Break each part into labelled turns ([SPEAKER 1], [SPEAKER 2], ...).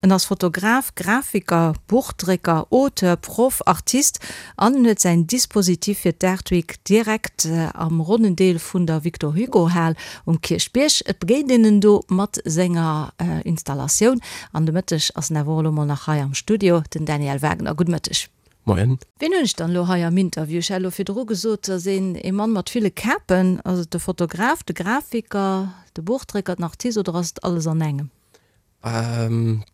[SPEAKER 1] En ass Fotograf, Grafiker, Buchdrécker, Auteur, Proff, Artist an en huet säin Dispositif fir d'Art Week direkt am ronnen Deel vun der Victor Hugo Hal um Kierchbierg. Et begéint een en do mat senger Installatioun an de Mëtteg ass en awer och elo mol nach hei am Studio, den Daniel Wagner. Gudde Mëtteg.
[SPEAKER 2] Moien.
[SPEAKER 1] Wien hunn ech dann elo hei am Interview? Ech hat elo virdru gesot, et ass een ee Mann mat ville Kapen. Ass et de Fotograf, de Grafiker, de Buchdrécker, den Artist oder ass et alles an engem?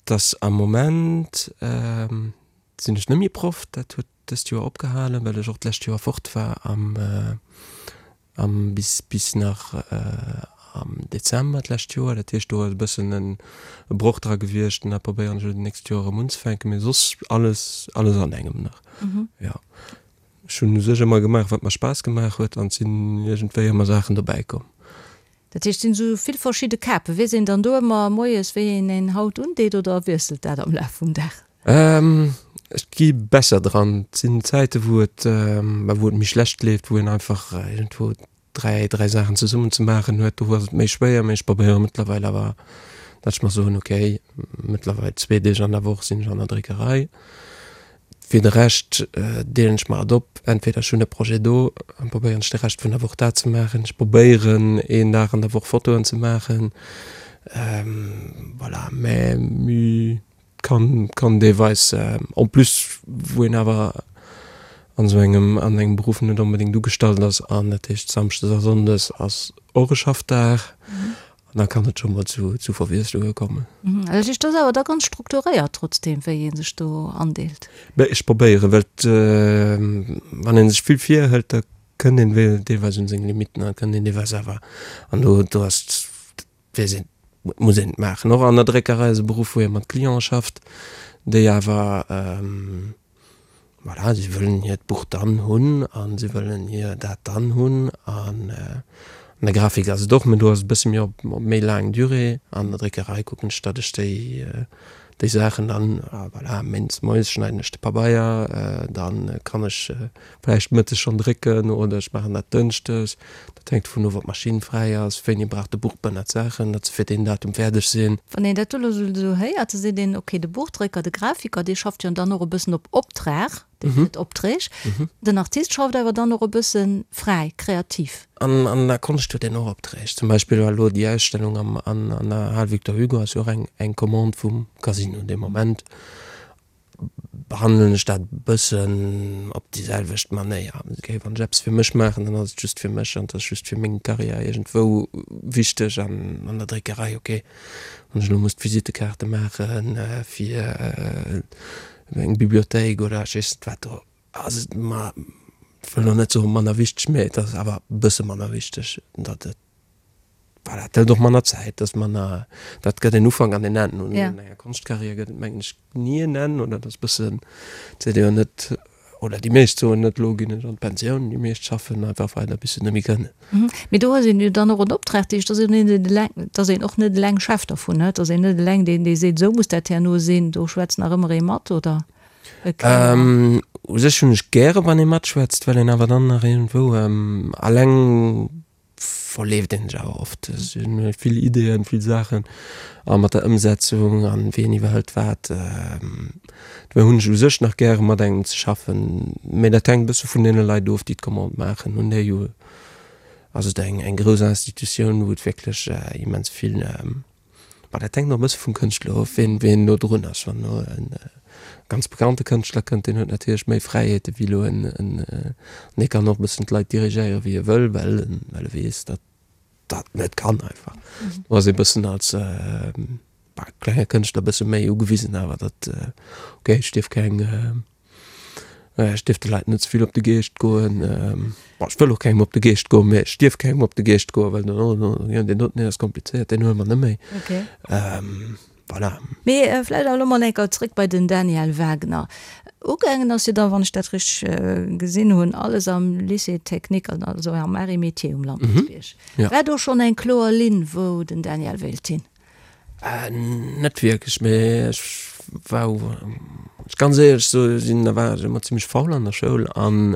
[SPEAKER 2] Dass am Moment sinn ech net méi Proff, dat huet dëst Joer opgehalen, well ech och d'lescht Joer fort war am am bis bis nach am Dezember d'lescht Joer. Dat heescht do ass e bëssen e Broch dra gewiescht an dat probéieren ech elo d'nächst Joer erëm unzefänken, mee soss alles alles an engem nach, jo. Ech hunn u sech ëmmer gemaach wat mer Spaass gemaach huet an et sinn iergendwéi ëmmer Saachen dobäi komm.
[SPEAKER 1] Dat heescht, et sinn esou vill verschidde Kapen. Weess een dann do ëmmer moies, wéi een een haut undeet oder wiesselt dat am Laf vum Dag?
[SPEAKER 2] Ech gi besser dran. Et sinn Zäite wou et, wou et méi schlecht leeft, wou een einfach iergendwou 3, 3 Saachen zesummen ze maachen huet. Do ass et méi schwéier, mee ech probéiere mëttlerweil awer, datt ech mer soen, okay, mëttlerweil zwee Deeg an der Woch sinn ech an der Dréckerei. Fir de Rescht deelen ech mer et op, entweder ech hunn e Projet do, dann probéieren ech de Rescht vun der Woch dat ze maachen, ech probéieren een Dag an der Woch Fotoen ze maachen, voilà, mä kann kann deelweis en plus wou een awer an esou engem an engem Beruff net onbedéngt ugestallt ass an dat heescht Samschdes a Sonndes ass och e Schaffdag An da kann et scho mol zu zu Verwiesslunge kommen.
[SPEAKER 1] Dat heescht, dat ass awer da ganz strukturéiert trotzdeem, wéi ee sech do andeelt?
[SPEAKER 2] Mä ech probéieren, well et, wann ee sech vill virhëlt, da kënnt een deelweis un seng Limitten an kënnt een deelweis awer, an do do ass, weess een, et muss een et maachen. Och an der Dréckerei ass e Beruff, wou ee mat Cliente schafft, déi awer, Voilà, si wëllen hiert Buch dann hunn a si wëllen hir dat dann hunn. An an der Grafik ass et och, mä do ass et e bësse méi op op méi laang Durée. An der Dréckerei kucken ech, datt ech déi déi Saachen dann, voilà, méindes moies schneiden ech de Pabeier, dann kann ech vläicht mëttes schonn drécken oder ech maachen dat dënschdes. Dat hänkt dovun of, ob d'Maschinn fräi ass, wéini brauch de Buchbënner d'Saachen, datt se fir deen Datum fäerdeg sinn.
[SPEAKER 1] Wann een dat do elo esou héiert, da seet een, okay, de Buchdrécker, de Grafiker, dee schafft jo dann och e bëssen op Optrag, dee kritt Opträg. Den Artist schafft awer dann och e bësse fräi, kreativ.
[SPEAKER 2] An an der Konscht huet een och Opträg. Zum Beispill war elo déi Ausstellung am an der Hal Victor Hugo ass jo och eng eng Commande vum Casino dee Moment. Behandelen ech dat e bëssen op déi selwecht Manéier. Okay, wann ech eppes fir mech maachen, dann ass et just fir mech an et ass just fir meng Karriär iergendwou wichteg. An an der Dréckerei, okay, wann ech elo muss d'Visitekaarte maache fir eng Bibliothéik oder ech weess net wat, do ass et mer, ech wëll elo net soen manner wichteg, mee et ass awer e bësse manner wichteg, datt et Voilà, dat hëlt och manner Zäit, dat ass manner, dat gëtt en Ufank an en Enn. Un enger Konschtkarriär gëtt et, mengen ech, ni en Enn, oder dat ass e bëssen, et seet ee jo net, oder déi meescht soen net, elo ginn ech an d'Pensioun, déi meescht schaffen einfach weider, bis se net méi kënnen.
[SPEAKER 1] Mee do huet een jo dann och en Optrag, dat heescht, dass een net eleng, dass een och net eleng Chef dervun huet, dass een net eleng deen, dee seet, esou muss dat herno sinn, do schwätzt nach ëmmer ee mat, oder?
[SPEAKER 2] E Kéier. U sech hunn ech gäre wann ee matschwätzt, well een awer dann nach iergendwou eleng verleeft een sech awer oft. Et si vill Ideeën, vill Saachen a mat der Ëmsetzung an wien iwwerhëlt wat. Dofir hunn ech u sech nach gäre mat engem ze schaffen, mee dat hänkt e bësse vun deene Leit of, déi d'Commande maachen. Hunn déi jo, ass et eng eng grouss Institutioun, wou et wierklech immens vill Ma dat hänkt och e bësse vum Kënschtler of, wien, wien elo drun ass. Wann elo e ganz bekannte Kënschtler kënnt, deen huet natierlech méi Fräiheete wéi elo en, en, an dee kann och e bëssen d'Leit dirigéiere wéi e wëll, well en, well e weess, datt dat net kann einfach. Do ass ee bëssen als klenge Kënschtler e bësse méi ugewisen awer, datt, okay, ech dierf keng, Ech dierf de Leit net ze vill op de Geescht goen. Bon, ech wëll och kengem op de Geescht goen, mee ech dierf kengem op de Geescht goen, well dann, oh, oh, jo, deen doten, deen ass komplizéiert, deen huele mer net méi.
[SPEAKER 1] Okay.
[SPEAKER 2] Voilà.
[SPEAKER 1] Mee vläicht awer elo mol eng Kéier zréck bei den Daniel Wagner. Ugaangen ass jo dann, wann ech dat richteg gesinn hunn, alles am Lycée technique, also am Arts et Métiers um Lampertsbierg. War do schonn eng kloer Linn, wou den Daniel wéilt hin?
[SPEAKER 2] Net wierklech, mee ech war, ech ganz éierlech soe sinn, da war ech ëmmer zimmlech faul an der Schoul an.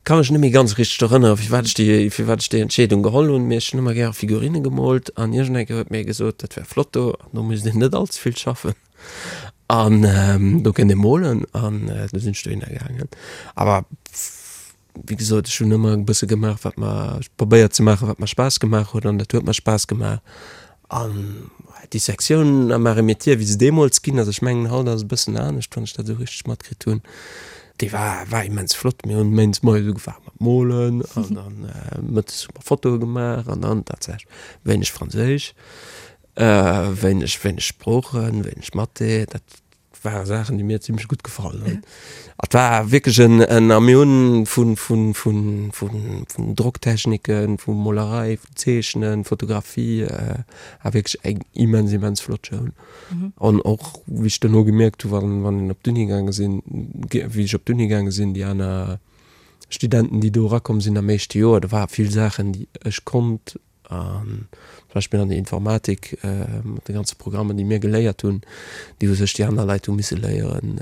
[SPEAKER 2] Ka mech net méi ganz richteg erënneren, firwat ech déi, firwat ech déi Entscheedung geholl hunn, mee ech hunn ëmmer gäre Figurinne gemoolt an iergendeng Kéier huet mir ee gesot, dat wär flott do an do misst een net all ze vill schaffen an do kéint ee molen an du sinn ech dohinner gaangen. Awer wéi gesot, ech hunn ëmmer e bësse gemaach, wat mer, probéiert ze maachen, wat mer Spaass gemaach huet an dat huet mer Spaass gemaach An déi Sektioun am Arts et Métiers, wéi se deemools ginn ass, ech mengen haut ass et e bëssen anescht, wann ech dat esou richteg matkritt hunn, déi war, war immens flott. Mir hunn méindes moies ugefaange mat molen an dann mëttes hu mer Fotoe gemaach an dann tatsächlech wéineg Franséisch, wéineg, wéineg Sproochen, wéineg Mathé, dat ware Saachen, déi mir zimmlech gutt gefall hunn. Et war wierklech en, en, a mir hunn vun, vun, vun, vun, vun Drocktechniken, vu Molerei, vu Zeechnen, Fotografie, war wierklech eng immens, immens flott Schoul. An och, wéi ech duerno gemierkt hu wann, wann een op d'Uni gaange sinn, wéi ech op d'Uni gaange sinn, déi aner Studenten, déi do erakomm sinn am éischte Joer, do ware vill Saachen, déi ech konnt An zum Beispill an der Informatik, mat de ganze Programmen, déi mir geléiert hunn, déi u sech déi aner Leit hu misse léieren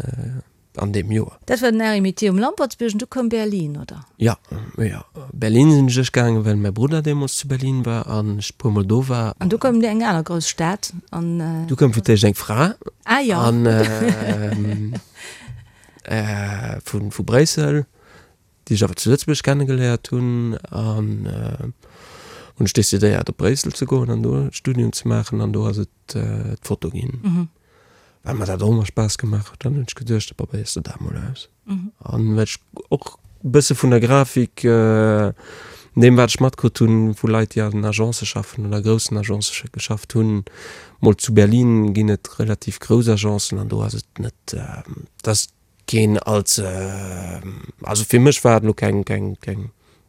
[SPEAKER 2] an deem Joer.
[SPEAKER 1] Dat war den Arts et Métiers um Lampertsbierg an du koum Berlin, oder?
[SPEAKER 2] Jo, jo. Berlin sinn ech gaangen, well mäi Brudder deemools zu Berlin war an ech e puermol do war.
[SPEAKER 1] An du koum eng aner grouss Stad an.
[SPEAKER 2] Du koum fir d'éischt eng Fra.
[SPEAKER 1] Ah jo.
[SPEAKER 2] An vu Bréissel. déi ech awer zu Lëtzebuerg kennegeléiert hunn an hunn ech decidéiert op Bréissel ze goen an do e Studium ze maachen an do ass et d'Foto ginn. Well mer dat och ëmmer Spaass gemaach huet, dann hunn ech geduecht, da probéiers de dat mol aus. An well ech och e bësse vun der Grafik, deem wat ech matkritt hunn vu Leit déi an Agencë schaffen oder groussen Agencë geschafft hunn, mol zu Berlin ginn et relativ grouss Agencen an do ass et net, dass Keen als, also fir mech war et elo keng, keng, keng,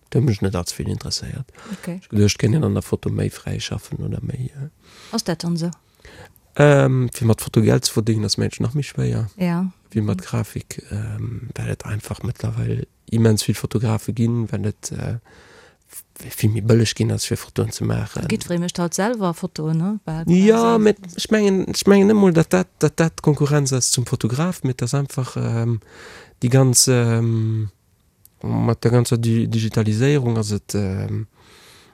[SPEAKER 2] et huet mech net allze vill interesséiert.
[SPEAKER 1] Okay.
[SPEAKER 2] Ech geduecht, et kéint een an der Foto méi fräi schaffen oder méi.
[SPEAKER 1] Ass dat dann esou?
[SPEAKER 2] Fir mat Foto Geld ze verdéngen ass mengen ech nach méi schwéier.
[SPEAKER 1] Ja.
[SPEAKER 2] Wéi mat Grafik, well et einfach mëttlerweil immens vill Fotografe ginn, well et vill méi bëlleg ginn ass fir Fotoen ze maachen.
[SPEAKER 1] Jiddweree mécht haut selwer Fotoen, ne?
[SPEAKER 2] Bal quasi. Jo, mä ech mengen, ech mengen net mol, datt dat, datt dat d'Konkurrenz ass zum Fotograf, mä et ass einfach déi ganz, mat der ganzer Digitaliséierung ass et,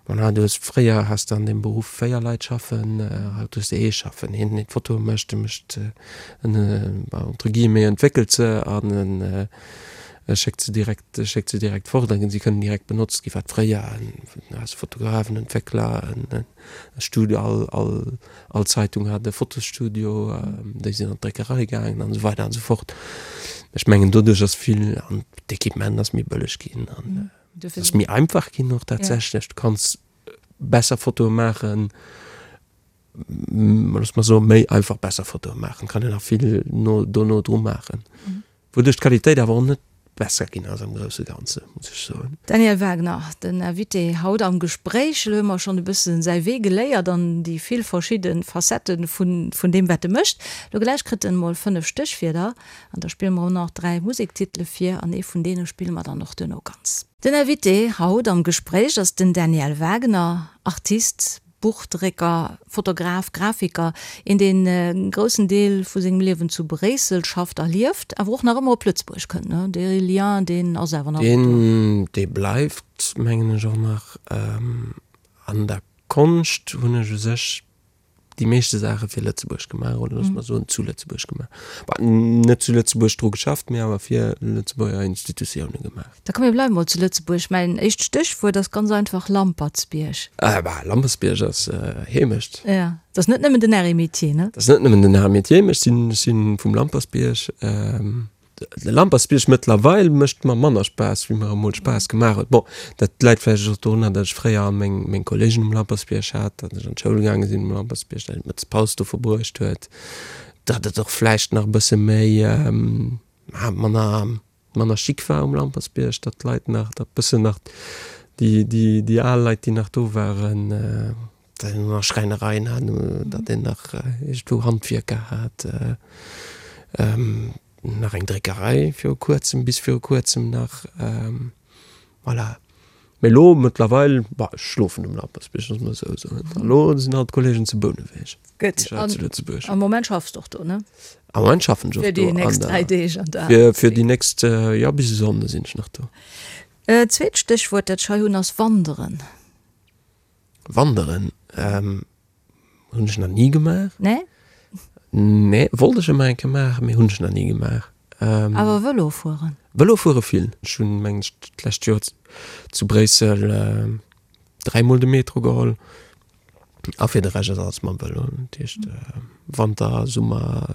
[SPEAKER 2] voilà, du hues, fréier has de an deem Beruff 4 Leit schaffen, haut hues de ee schaffen, een deen d'Fotoe mécht, e mécht, en, entre guillemets, entwéckelt se an en schéckt se direkt, schéckt se direkt fort an si kënnen direkt benotzt ginn, wat fréier en als Fotograf, en Entwéckler, en Studio, all, all, all Zeitung hat e Fotosstudio, déi sinn an d'Dréckerei gaangen an esou weider an esou fort. Ech mengen doduerch ass vill, an d'Equipement ass méi bëlleg ginn an et ass méi einfach ginn och tatsächlech. Du kanns besser Fotoe maachen. Looss mer soen, méi einfach besser Fotoe maachen, kann een nach vill no dono dru maachen. Wouduerch d'Qualitéit awer och net besser ginn ass am grousse Ganze, muss ech soen.
[SPEAKER 1] Daniel Wagner, den Invité haut am Gespréich. Elo hu mer schonn e bësse säi Wee geléiert an déi vill verschidde Facettë vun deem, wat e mécht. Elo gläich kritt en emol 5 Stéchwierder an da spille mer och nach 3 Musektitele vir an ee vun deene spille mer dann och duerno ganz. Den Invité haut am Gespréich ass den Daniel Wagner, Artist, Buchdrécker, Fotograf, Grafiker, een deen e groussen Deel vu sengem Liewen zu Bréissel schafft a lieft, awer och nach ëmmer op Lëtzebuerg kënnt, ne? Dee Lien, deen ass awer nach
[SPEAKER 2] ëmmer do. Deen, dee bleift, mengen ech, och nach. An der Konscht hunn ech u sech déi meeschte Saache fir Lëtzebuerg gemaach, oder loosse mer soen, zu Lëtzebuerg gemaach. Bah, net zu Lëtzebuerg dru geschafft, mee awer fir Lëtzebuerger Institutioune gemaach.
[SPEAKER 1] Da komm mir bleiwe mol zu Lëtzebuerg. Mäin éischt Stéchwuert ass ganz einfach Lampertsbierg.
[SPEAKER 2] Ah bah, Lampertsbierg ass Heemecht.
[SPEAKER 1] Ja, dat ass net nëmmen den Arts et Métiers, ne?
[SPEAKER 2] Dat ass net nëmmen den Arts et Métiers, mee ech sinn, ech sinn vum Lampertsbierg. De Lampertsbierg mëttlerweil mécht mer manner Spaass, wéi mer emol Spaass gemaach huet. Bon, dat läit vläicht och dorunner, datt ech fréier all meng, meng Kolleegen um Lampertsbierg hat, datt ech an d'Schoul gaange sinn um Lampertsbierg, datt een d'Mëttespaus do verbruecht huet, datt et och vläicht nach e bësse méi, manner, manner chic war um Lampertsbierg, datt d'Leit nach, datt bëssen nach déi, déi, déi al Leit, déi nach do waren, datt een nach Schräinereien hat, datt een nach iergendwou Handwierker hat, nach eng Dréckerei viru kuerzem, bis viru kuerzem nach. Voilà. Mee elo mëttlerweil, bah, ech schlofen um Lampertsbierg, loosse mer esou soen. An elo sinn all d'Kollegen zu Bouneweg.
[SPEAKER 1] Gutt. Ech war zu Lëtzebuerg. Am Moment schaffs de och do, ne?
[SPEAKER 2] Am Moment schaffen ech och do.
[SPEAKER 1] Fir déi nächst 3 Deeg
[SPEAKER 2] an der. Fir, fir déi nächst, jo, bis e Sonnde sinn ech nach do.
[SPEAKER 1] Zweet Stéchwuert, dat ech hei hunn, ass Wanderen.
[SPEAKER 2] Wanderen hunn ech nach ni gemaach.
[SPEAKER 1] Nee?
[SPEAKER 2] Nee, wollt ech ëmmer eng Kéier maachen, mee hunn ech nach ni gemaach.
[SPEAKER 1] Awer Vëlo fueren?
[SPEAKER 2] Vëlo fuere vill. Ech hunn, mengen ech, d'lescht Joer zu Bréissel dräimol de Metro geholl. A fir de Rescht ass alles mam Vëlo. Dat heescht Wanter, Summer,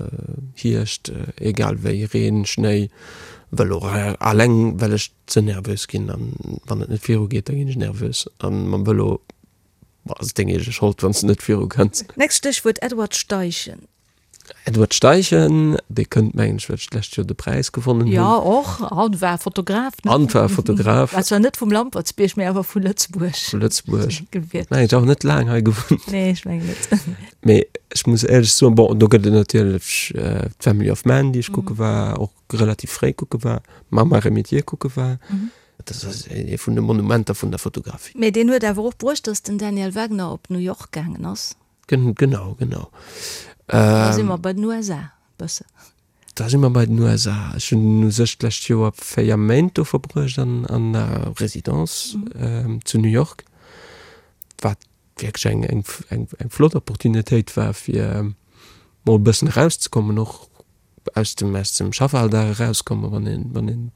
[SPEAKER 2] Hierscht, egal wéi, Reen, Schnéi, Vëlo. Alleng well ech ze nervös ginn an wann et net viru geet, da ginn ech nervös. An mam Vëlo ass et deng eege Schold, wann s de net viru kënns.
[SPEAKER 1] Nächst Stéchwuert, Edward Steichen.
[SPEAKER 2] Edward Steichen, dee kënnt mengen ech, well ech d'lescht Joer de Präis gewonnen hunn.
[SPEAKER 1] Jo, och. An war Fotograf,
[SPEAKER 2] ne? An war Fotograf.
[SPEAKER 1] War zwar net vum Lampertsbierg, mee awer vu Lëtzebuerg.
[SPEAKER 2] Vu Lëtzebuerg. Gewiert. Mengen ech och net laang hei gewunnt.
[SPEAKER 1] Nee, ech mengen net.
[SPEAKER 2] Mee ech muss éierlech soen, bon, do gëtt et natierlech d'Family of Man, déi ech kucke war, och relativ fréi kucke war, Mama Remitier kucke war. Dat ass ee vun de Monumenter vun der Fotografie.
[SPEAKER 1] Mee deen huet awer och bruecht, datt den Daniel Wagner op New York gaangen ass.
[SPEAKER 2] Genau, genau.
[SPEAKER 1] Da si mer bei den USA bëssen.
[SPEAKER 2] Da si mer bei den USA. Ech hunn u sech d'lescht Joer 4 Méint do verbruecht an an der Residence zu New York, wat wierklech eng eng eng eng flott Opportunitéit war, fir mol e bëssen erauszekommen, och aus dem aus dem Schaffalldag erauskommen, wann een wann een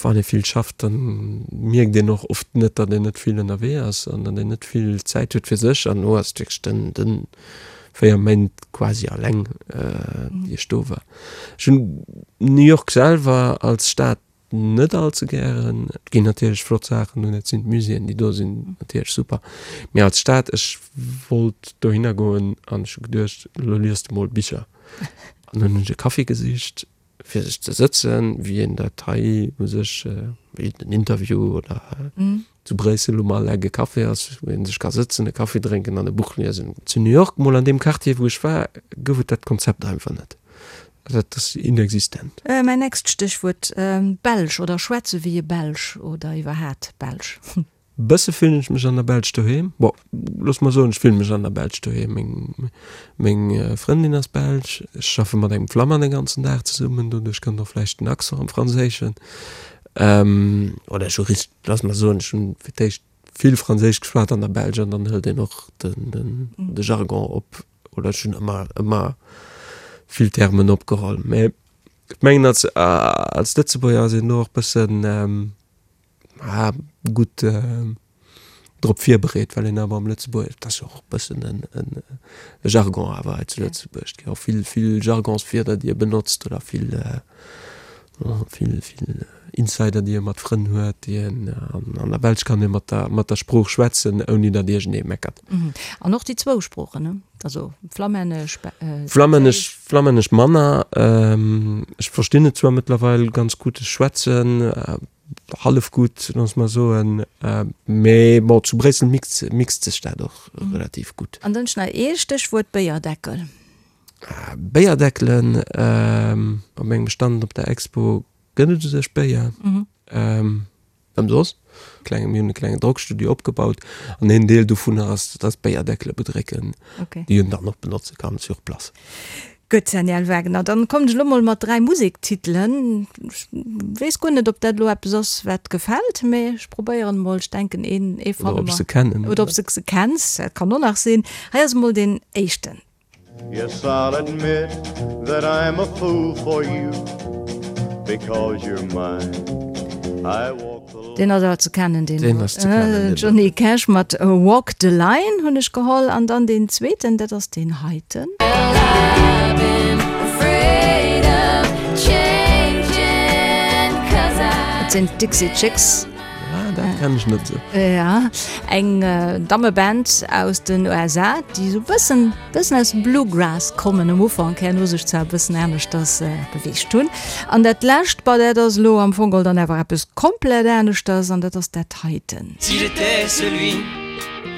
[SPEAKER 2] Wann ee vill schafft, da mierkt een och oft net, datt een net vill ënnerwee ass an datt een net vill Zäit huet fir sech. An elo ass et wierklech den, den 4 Méint quasi alleng, déi ech do war. Ech hunn New York selwer als Stad net all ze gären. Et ginn natierlech flott Saachen do, dat sinn d'Muséeën, déi do sinn natierlech super. Mee als Stad, ech wollt dohinner goen an ech hu geduecht, elo liest de mol Bicher. An dann hunn ech e Café gesicht fir sech ze sëtzen, wéi een dat hei u sech, wéi den Interview oder zu Bréissel um Al-Egg e Café ass, wou ee sech ka sëtzen, e Kaffi drénken an e Buch liesen. Zu New York, mol an deem Quartier, wou ech war, gouf et dat Konzept einfach net. Dat ass inexistent.
[SPEAKER 1] Mäin nächst Stéchwuert, Belsch oder schwätze wéi e Belsch oder iwwerhaat Belsch.
[SPEAKER 2] Bësse fillen ech mech an der Belsch doheem. Bon, looss mer soen, ech fillen mech an der Belsch doheem. Meng, meng Frëndin ass Belsch. Ech schaffe mat engem Flamand den ganzen Dag zesummen, doduerch kënnt och vläicht den Accent am Franséischen. Oder ech hu richt, looss mer soen, ech hunn fir d'éischt vill Franséisch geschwat an der Belsch an dann hëlt een och den, den, de Jargon op. Oder ech hunn ëmmer, ëmmer vill Termen opgeholl. Mä ech mengen, als, als Lëtzebuerger ass een do och bëssen, Ah, gutt drop virbereet, well een awer am Lëtzebuerg, dat ass jo och e bëssen en, en e Jargon awer hei zu Lëtzebuerg, et gi och vill, vill Jargonswierder, déi e benotzt oder vill, vill, vill Insider, déi e mat Frënn huet, déi en, an an der Belsch kann ee mat der, mat der Sprooch schwätzen, ouni datt iergendee meckert.
[SPEAKER 1] An och déi zwou Sproochen, ne? Also Flammännesch,
[SPEAKER 2] Flammännesch, Flammännesch manner. Ech verstinn et zwar mëttlerweil ganz gutt, ech schwätzen hallef gutt, loosse mer soen, mee bon, zu Bréissel mixt, mixt sech dat och relativ gutt.
[SPEAKER 1] An dann nach ee Stéchwuert, Béierdeckel.
[SPEAKER 2] Béierdeckelen, op mengem Stand op der Expo gëtt et u sech Béier. Ëmsoss. Klenge, mir hunn e klengen Drockstudio opgebaut an een Deel dovunner ass, dass Béierdeckele bedrécken, déi een dann och benotze kann sur place.
[SPEAKER 1] Gutt, Daniel Wagener, dann kommen ech elo mol mat 3 Musektitelen. Ech weess guer net, ob dat elo eppes ass, wat gefält, mee ech probéieren emol. Ech denken, een, ee
[SPEAKER 2] fanne mer. Oder ob ech se kennen.
[SPEAKER 1] Oder ob s de se kenns, dat kann och nach sinn. Hei ass emol deen éischten. Yes, I'll admit that I'm a fool for you Because you're mine I walk the line Deen ass awer ze kennen, deen.
[SPEAKER 2] Deen ass ze kennen,
[SPEAKER 1] deen. Johnny Cash mat Walk the Line hunn ech geholl. An dann deen zweeten, dat ass deen heiten. Dat sinn d'Dixie Chicks.
[SPEAKER 2] Ah, dat kenn ech net sou.
[SPEAKER 1] Ja, eng Dammeband aus den USA, déi sou bëssen, bëssen aus dem Bluegrass kommen am Ufank, herno sech zwar e bëssen aneschters beweegt hunn. An dat lescht, bah, dat ass elo am Fong geholl dann awer eppes komplett aneschters, an dat ass dat heiten. Si j'étais celui,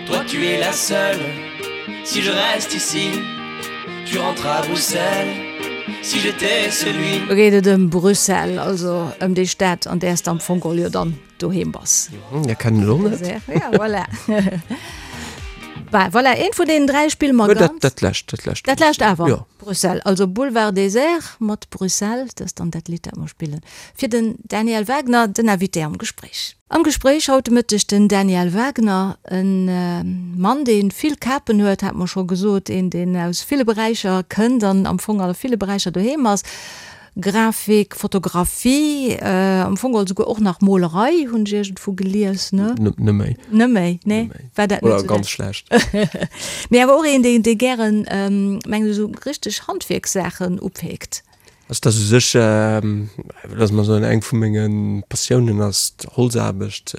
[SPEAKER 1] toi tu es la seule Si je reste ici, tu rentres à Bruxelles Si j'étais celui. Do geet et ëm Bruxelles, also ëm déi Stad, an där s de am Fong geholl jo dann doheem bass.
[SPEAKER 2] Dat kennen ech och net.
[SPEAKER 1] Ja, voilà. Bah, voilà, eent vun deenen 3 spille mer
[SPEAKER 2] ganz. Dat lescht, dat lescht.
[SPEAKER 1] Dat lescht awer? Jo. Bruxelles, also Boulevard Désert mat Bruxelles, dat ass dann dat Lidd, dat mer spillen. Fir den Daniel Wagner, den Invité am Gespréich. Am Gespréich haut de Mëtteg den Daniel Wagner, e Mann, dee vill Kapen huet, hat mer scho gesot, een, deen aus ville Beräicher kënnt an am Fong a ville Beräicher doheem ass. Grafik, Fotografie, am Fong geholl souguer och nach Molerei, hunn ech iergendwou gelies, ne?
[SPEAKER 2] Net méi.
[SPEAKER 1] Net méi, nee. War dat net
[SPEAKER 2] Oder ganz schlecht.
[SPEAKER 1] Mee awer och een, dee, dee gären, mengen ech, esou richteg Handwierkssaachen upeekt.
[SPEAKER 2] Also dat ass u sech, loosse mer soen, eng vu menge Passiounen ass d'Holzaarbecht.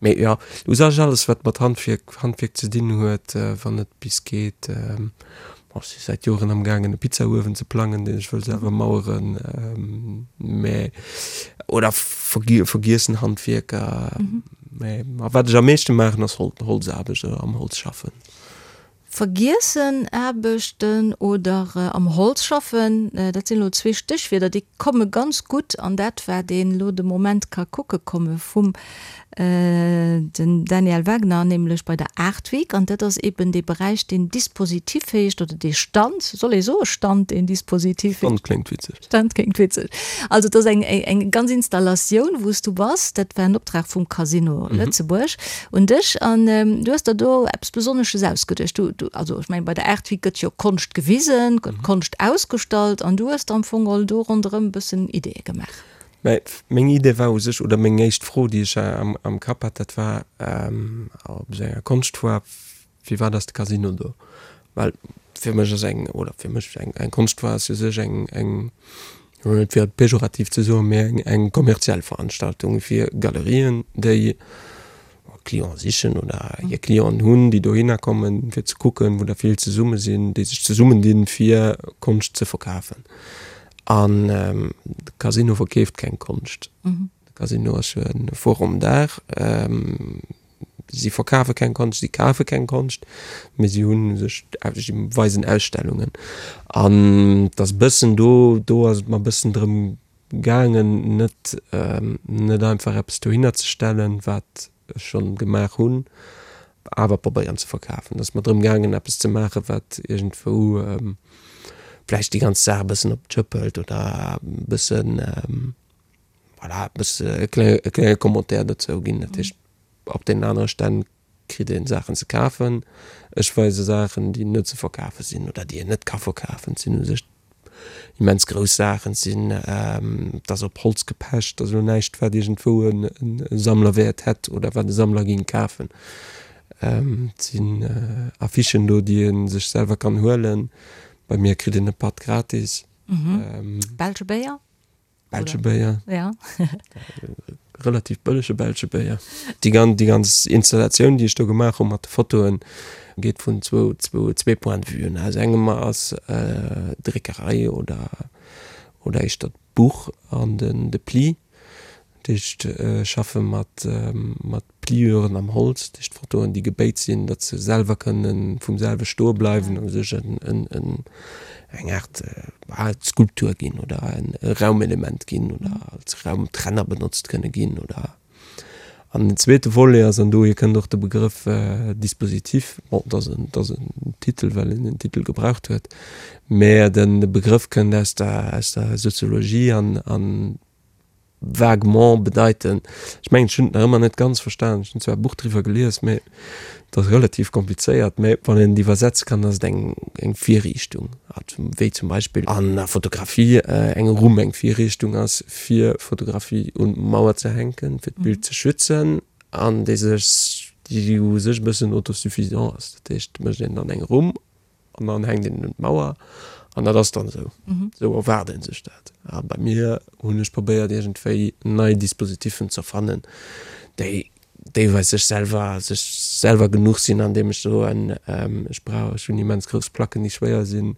[SPEAKER 2] Mee jo, u sech alles wat mat Handwierk, Handwierk ze dinn huet, wann et bis geet. Bon, ech si säit Joren am gaangen e Pizzauewen ze plangen, deen ech wëll selwer maueren, mä oder vergiessen Handwierker. Mä a wat ech am meeschte maachen ass Holzaarbecht oder am Holz schaffen.
[SPEAKER 1] Vergiessen Aarbechten oder am Holz schaffen, dat sinn elo zwee Stéchwierder, déi komme ganz gutt an dat, wat een elo de Moment ka kucke komme vum den Daniel Wagner, nämlech bei der Art Week. An dat ass eben dee Beräich, deen Dispositif heescht, oder dee Stand, soll ee soe Stand, deen Dispositif heescht?
[SPEAKER 2] Stand kléngt witzeg.
[SPEAKER 1] Stand kléngt witzeg. Also et ass eng eng ganz Installatioun, wou s du bass. Dat war en Optrag vum Casino Lëtzebuerg un dech an du hues der do eppes Besonnesches ausgeduecht. Du, du, also ech mengen bei der Art Week gëtt jo Konscht gewisen, gëtt Konscht ausgestallt an du hues der am Fong geholl do ronderëm e bëssen Ideeë gemaach.
[SPEAKER 2] Mä meng Idee war u sech, oder meng éischt Fro, déi ech am am Kapp hat, dat war op esou enger Konschtfoire, Firwat ass de Casino do? Well fir mech ass eng, oder fir mech, eng eng Konschtfoire ass u sech eng eng, net fir et pejorativ ze soen, mee eng eng kommerziell Veranstaltung fir Galerien, déi Clienten sichen oder hir Clienten hunn, déi dohinner kommen, fir ze kucken, wou der vill zesumme sinn, déi sech zesummendinn, fir Konscht ze verkafen. An de Casino verkeeft keng Konscht. De Casino ass jo e Forum d'art. Si verkafe keng Konscht, si kafe keng Konscht, mee si hu sech, si weisen Ausstellungen. An et ass e bëssen do, do ass et mer e bëssen drëm gaangen, net, net einfach eppes dohinner ze stellen, wat ech schonn gemaach hunn, awer probéieren ze verkafen. Et ass mer drëm gaangen, eppes ze maachen, wat iergendwou vläicht déi ganz Saach e bëssen op d'Schëpp hëlt oder e bëssen, Voilà, e bësse e klenge, e klenge Commentaire dozou ginn. Dat heescht, op deenen anere Stänn kritt een Saachen ze kafen. Ech weise Saachen, déi net ze verkafe sinn oder déi een net ka verkafen. Et sinn u sech immens grouss Saachen. Et sinn, et ass op Holz gepecht, et ass elo näischt, wat iergendwou e Sammlerwäert hätt oder wat e Sammler géing kafen. Et sinn Affichen do, déi ee sech selwer kann huelen. Bei mir kritt een e Patt gratis.
[SPEAKER 1] Belsche Béier?
[SPEAKER 2] Belsche Béier. Ja. Relativ bëllege belsche Béier. Déi gan déi ganz Installatioun, déi ech do gemaach hu mat de Fotoen, geet vun zwou zwou zwee Point de vuen. Aus engem ass d'Dréckerei oder oder éischter d'Buch an den de Pli. Dat heescht, ech schaffe mat mat Pliuren am Holz, dat heescht Fotoen, déi gebéit sinn, datt se selwer kënne vum selwe stoe bleiwen a sech en en eng Aart Skulptur ginn oder e Raumelement ginn oder als Raumtrenner benotzt kënne ginn oder. An den zweete Volet ass, an dohier kënnt och de Begrëff Dispositif, bon, dat ass en, dat ass en Titel, well een den Titel gebraucht huet, mä de Begrëff kënnt aus der, aus der Soziologie an an vaguement bedeiten. Ech mengen, ech hunn et nach ëmmer net ganz verstanen. Ech hunn zwar e Buch driwwer gelies, mä et ass relativ komplizéiert. Mä wann een et iwwersetze kann, ass et eng, eng Virriichtung, wéi zum Beispill an der Fotografie eng Rumm eng Virriichtung ass, fir Fotografie un d'Mauer ze hänken, fir d'Bild ze schützen, an déi sech, déi u sech e bëssen autosuffisant ass. Dat heescht, et mécht een dann eng Rumm An dann hänkt een en un d'Mauer an dat ass dann esou. Esou erwaart ee sech dat. A bei mir hunn ech probéiert iergendwéi nei Dispositiffen ze erfannen, déi deelweis sech selwer, sech selwer genuch sinn, andeem ech soen, ech brauch, ech hunn immens grouss Placken, déi schwéier sinn,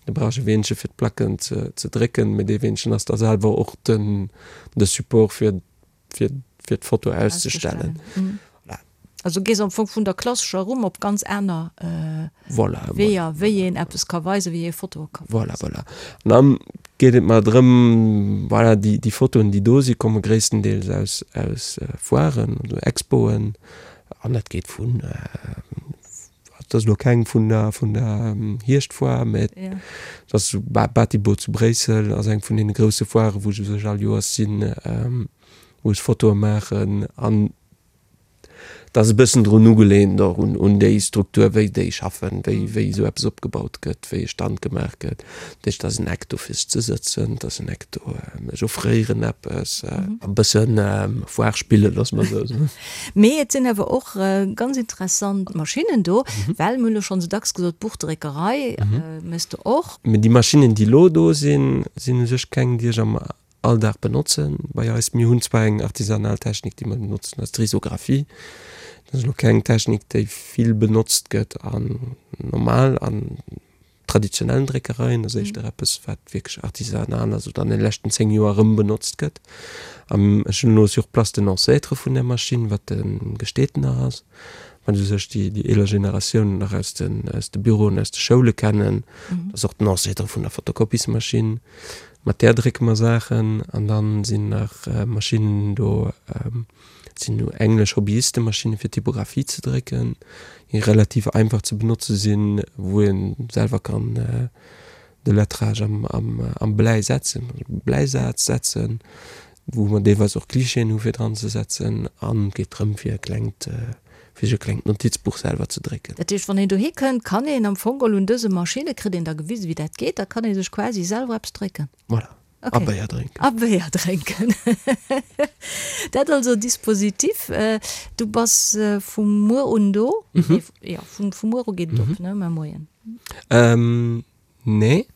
[SPEAKER 2] da brauch ech e Weenche fir d'Placken ze ze drécken, mee dee Weenchen ass da selwer och den de Support fir fir fir d'Foto auszestellen.
[SPEAKER 1] Voilà. Also gees am Fong vun der klassescher Rumm op ganz aner voilà, Weeër, voilà, wéi een eppes ka weisen, wéi ee Fotoe ka
[SPEAKER 2] weisen. Voilà, voilà. An dann geet et mer drëm, voilà, déi, déi Fotoen, déi do sinn, komme gréisstendeels aus, aus Foiren oder Expoen. An dat geet vun. Dat ass elo keng vun der, vun der Hierschtfoire, mä dat ass Batibot zu Bréissel, ass eng vun deene grousse Foiren, wou ech u sech all Joers sinn, wou ech Fotoe maachen. An dat ass e bëssen drun ugelehnt och un, un déi Struktur, wéi déi schaffen, wéi, wéi esou eppes opgebaut gëtt, wéi e Stand gemaach gëtt. Dat heescht, et ass en Eck do fir sech ze sëtzen, et ass en Eck do, ech offréieren eppes, e bëssen Foire spillen, loosse mer esou soen.
[SPEAKER 1] Mee et sinn awer och ganz interessant Maschinnen do, well mir hunn elo schonn esou dacks gesot, Buchdréckerei méchs de och.
[SPEAKER 2] Mee déi Maschinnen, déi elo do sinn, sinn u sech keng, déi ech am Alldag benotzen bei eis. Mir hunn zwar eng artisanal Technik, déi mer benotzen, dat ass d'Risographie. Dat ass elo keng Technik, déi vill benotzt gëtt an normal an. traditionellen Dréckereien, ass éischter eppes, wat wierklech artisanal ass oder an de leschten 10 Joer erëm benotzt gëtt. An ech hunn elo sur place den Ancêtre vun där Maschinn, wat de Gestetner ass, wat u sech déi déi eeler Generatiounen nach aus den aus de Büroen, aus de Schoule kennen. Dat ass och den Ancêtre vun der Fotokopiesmaschinn. Mat där drécke mer Saachen. An dann sinn nach Maschinnen do, Et sinn nu englesch Hobbyistemaschinne fir Typographie ze drécken, déi relativ einfach ze benotze sinn, wou ee selwer kann de Lettrage am Bläi setzen, Bläisaz setzen, wou mer deelweis och Klischeeën hu fir dran ze setzen. An et geet drëm fir e klengt, fir sech e klengt Notizbuch selwer ze drécken.
[SPEAKER 1] Dat heescht, wann een dohi kënnt, kann een am Fong geholl un dëse Maschinne, kritt een da gewisen, wéi dat geet, da kann ee sech quasi selwer eppes drécken.
[SPEAKER 2] Voilà.
[SPEAKER 1] Okay.
[SPEAKER 2] A Béier drénken.
[SPEAKER 1] A Béier drénken. Dat also Dispositif. Du bass vu muer un do? Mhm. Jo, vu, vu muer u geet et op, ne? Mar Moien.
[SPEAKER 2] Ähm, nee.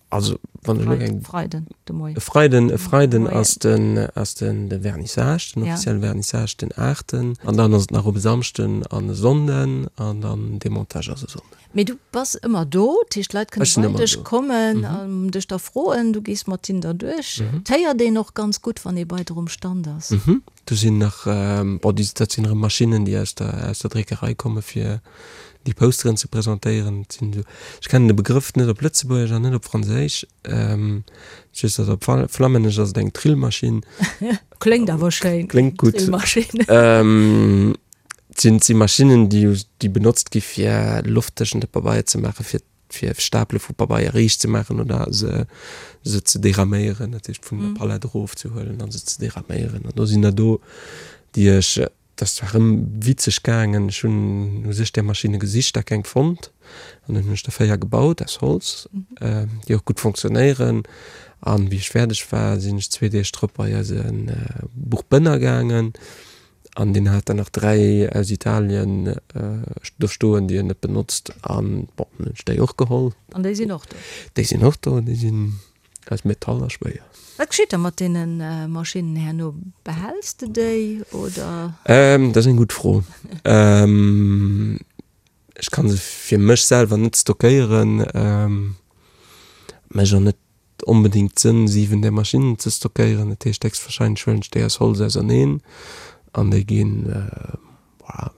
[SPEAKER 2] Also, wann ech elo eng.
[SPEAKER 1] Freiden, de Moien.
[SPEAKER 2] E Freiden, e Freiden ass den, ass den, de Vernissage, den offizielle Vernissage, den aachten. An dann ass et nach op e Samschden an e Sonnden an dann Demontage ass e Sonnden.
[SPEAKER 1] Mee du bass ëmmer do, dat heescht d'Leit kënne bei dech kommen an dech da froen, du gees mat hinnen da duerch. Et héiert een och ganz gutt, wann ee bei der um Stand ass.
[SPEAKER 2] Do sinn nach, bon, déi, dat sinn erëm Maschinnen, déi aus der, aus der Dréckerei komme fir déi Posteren ze presentéieren. Dat sinn esou, ech kennen de Begrëff net op Lëtzebuergesch an net op Franséisch, just datt op Flammännesch ass et eng Trillmaschinn.
[SPEAKER 1] Kléngt awer schéin.
[SPEAKER 2] Kléngt gutt. Trillmaschinn. Et sinn, et si Maschinnen, déi, déi benotzt gi fir Loft tëschent de Pabeier ze maachen, fir, fir Stapele vu Pabeier riicht ze maachen oder se, se ze deraméieren, dat heescht vun der Palett erofzehuelen a se ze deraméieren. An do sinn der do, déi ech, dat ass zwar erëm witzeg gaangen, ech hunn u sech där Maschinne gesicht a keng fonnt an dunn hunn ech der 4 gebaut aus Holz, déi och gutt fonctionnéieren. An wéi ech fäerdeg war, sinn ech zwee Deeg drop bei eise Buchbënner gaangen An deen hat der nach 3 aus Italien do stoen, déi en net benotzt. An bon, dann hunn ech déi och geholl.
[SPEAKER 1] An déi sinn och do?
[SPEAKER 2] Déi sinn och do. Déi sinn aus Metall a schwéier.
[SPEAKER 1] Wat geschitt da mat deene Maschinnen herno? Behäls de déi oder?
[SPEAKER 2] Dat ass eng gutt Fro. Ech ka se fir mech selwer net stockéieren. Mécht och net onbedéngt Sënn 7 där Maschinnen ze stockéieren. Dat heescht héchstwahrscheinlech huelen ech déi aus Holz auserneen an déi ginn, voilà,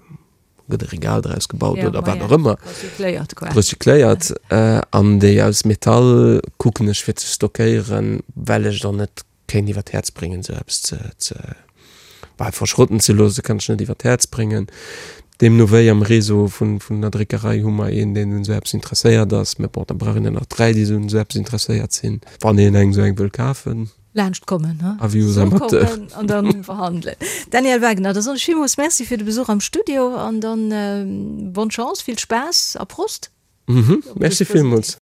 [SPEAKER 2] gëtt e Regal draus gebaut oder wat och ëmmer.
[SPEAKER 1] Recycléiert
[SPEAKER 2] quasi. Recycléiert. An déi aus Metall kucken ech fir ze stockéieren, well ech et och net kéint iwwer d'Häerz bréngen esou eppes ze, ze, bah, verschrotten ze loossen, kann ech net iwwer d'Häerz bréngen. Deemno wéi am Réseau vun, vun der Dréckerei hu mer een, deen un esou eppes interesséiert ass, mä bon, da brauch een der nach 3, déi un esou eppes interesséiert sinn, wann een eng esou eng wëll kafen.
[SPEAKER 1] Laanscht kommen, he?
[SPEAKER 2] Avis aux amateurs.
[SPEAKER 1] Kommen an dann verhandelen. Daniel Wagener, da soen ech villmools Merci fir de Besuch am Studio an dann bonne Chance, vill Spaass a Prost!
[SPEAKER 2] Mhm, Merci villmools.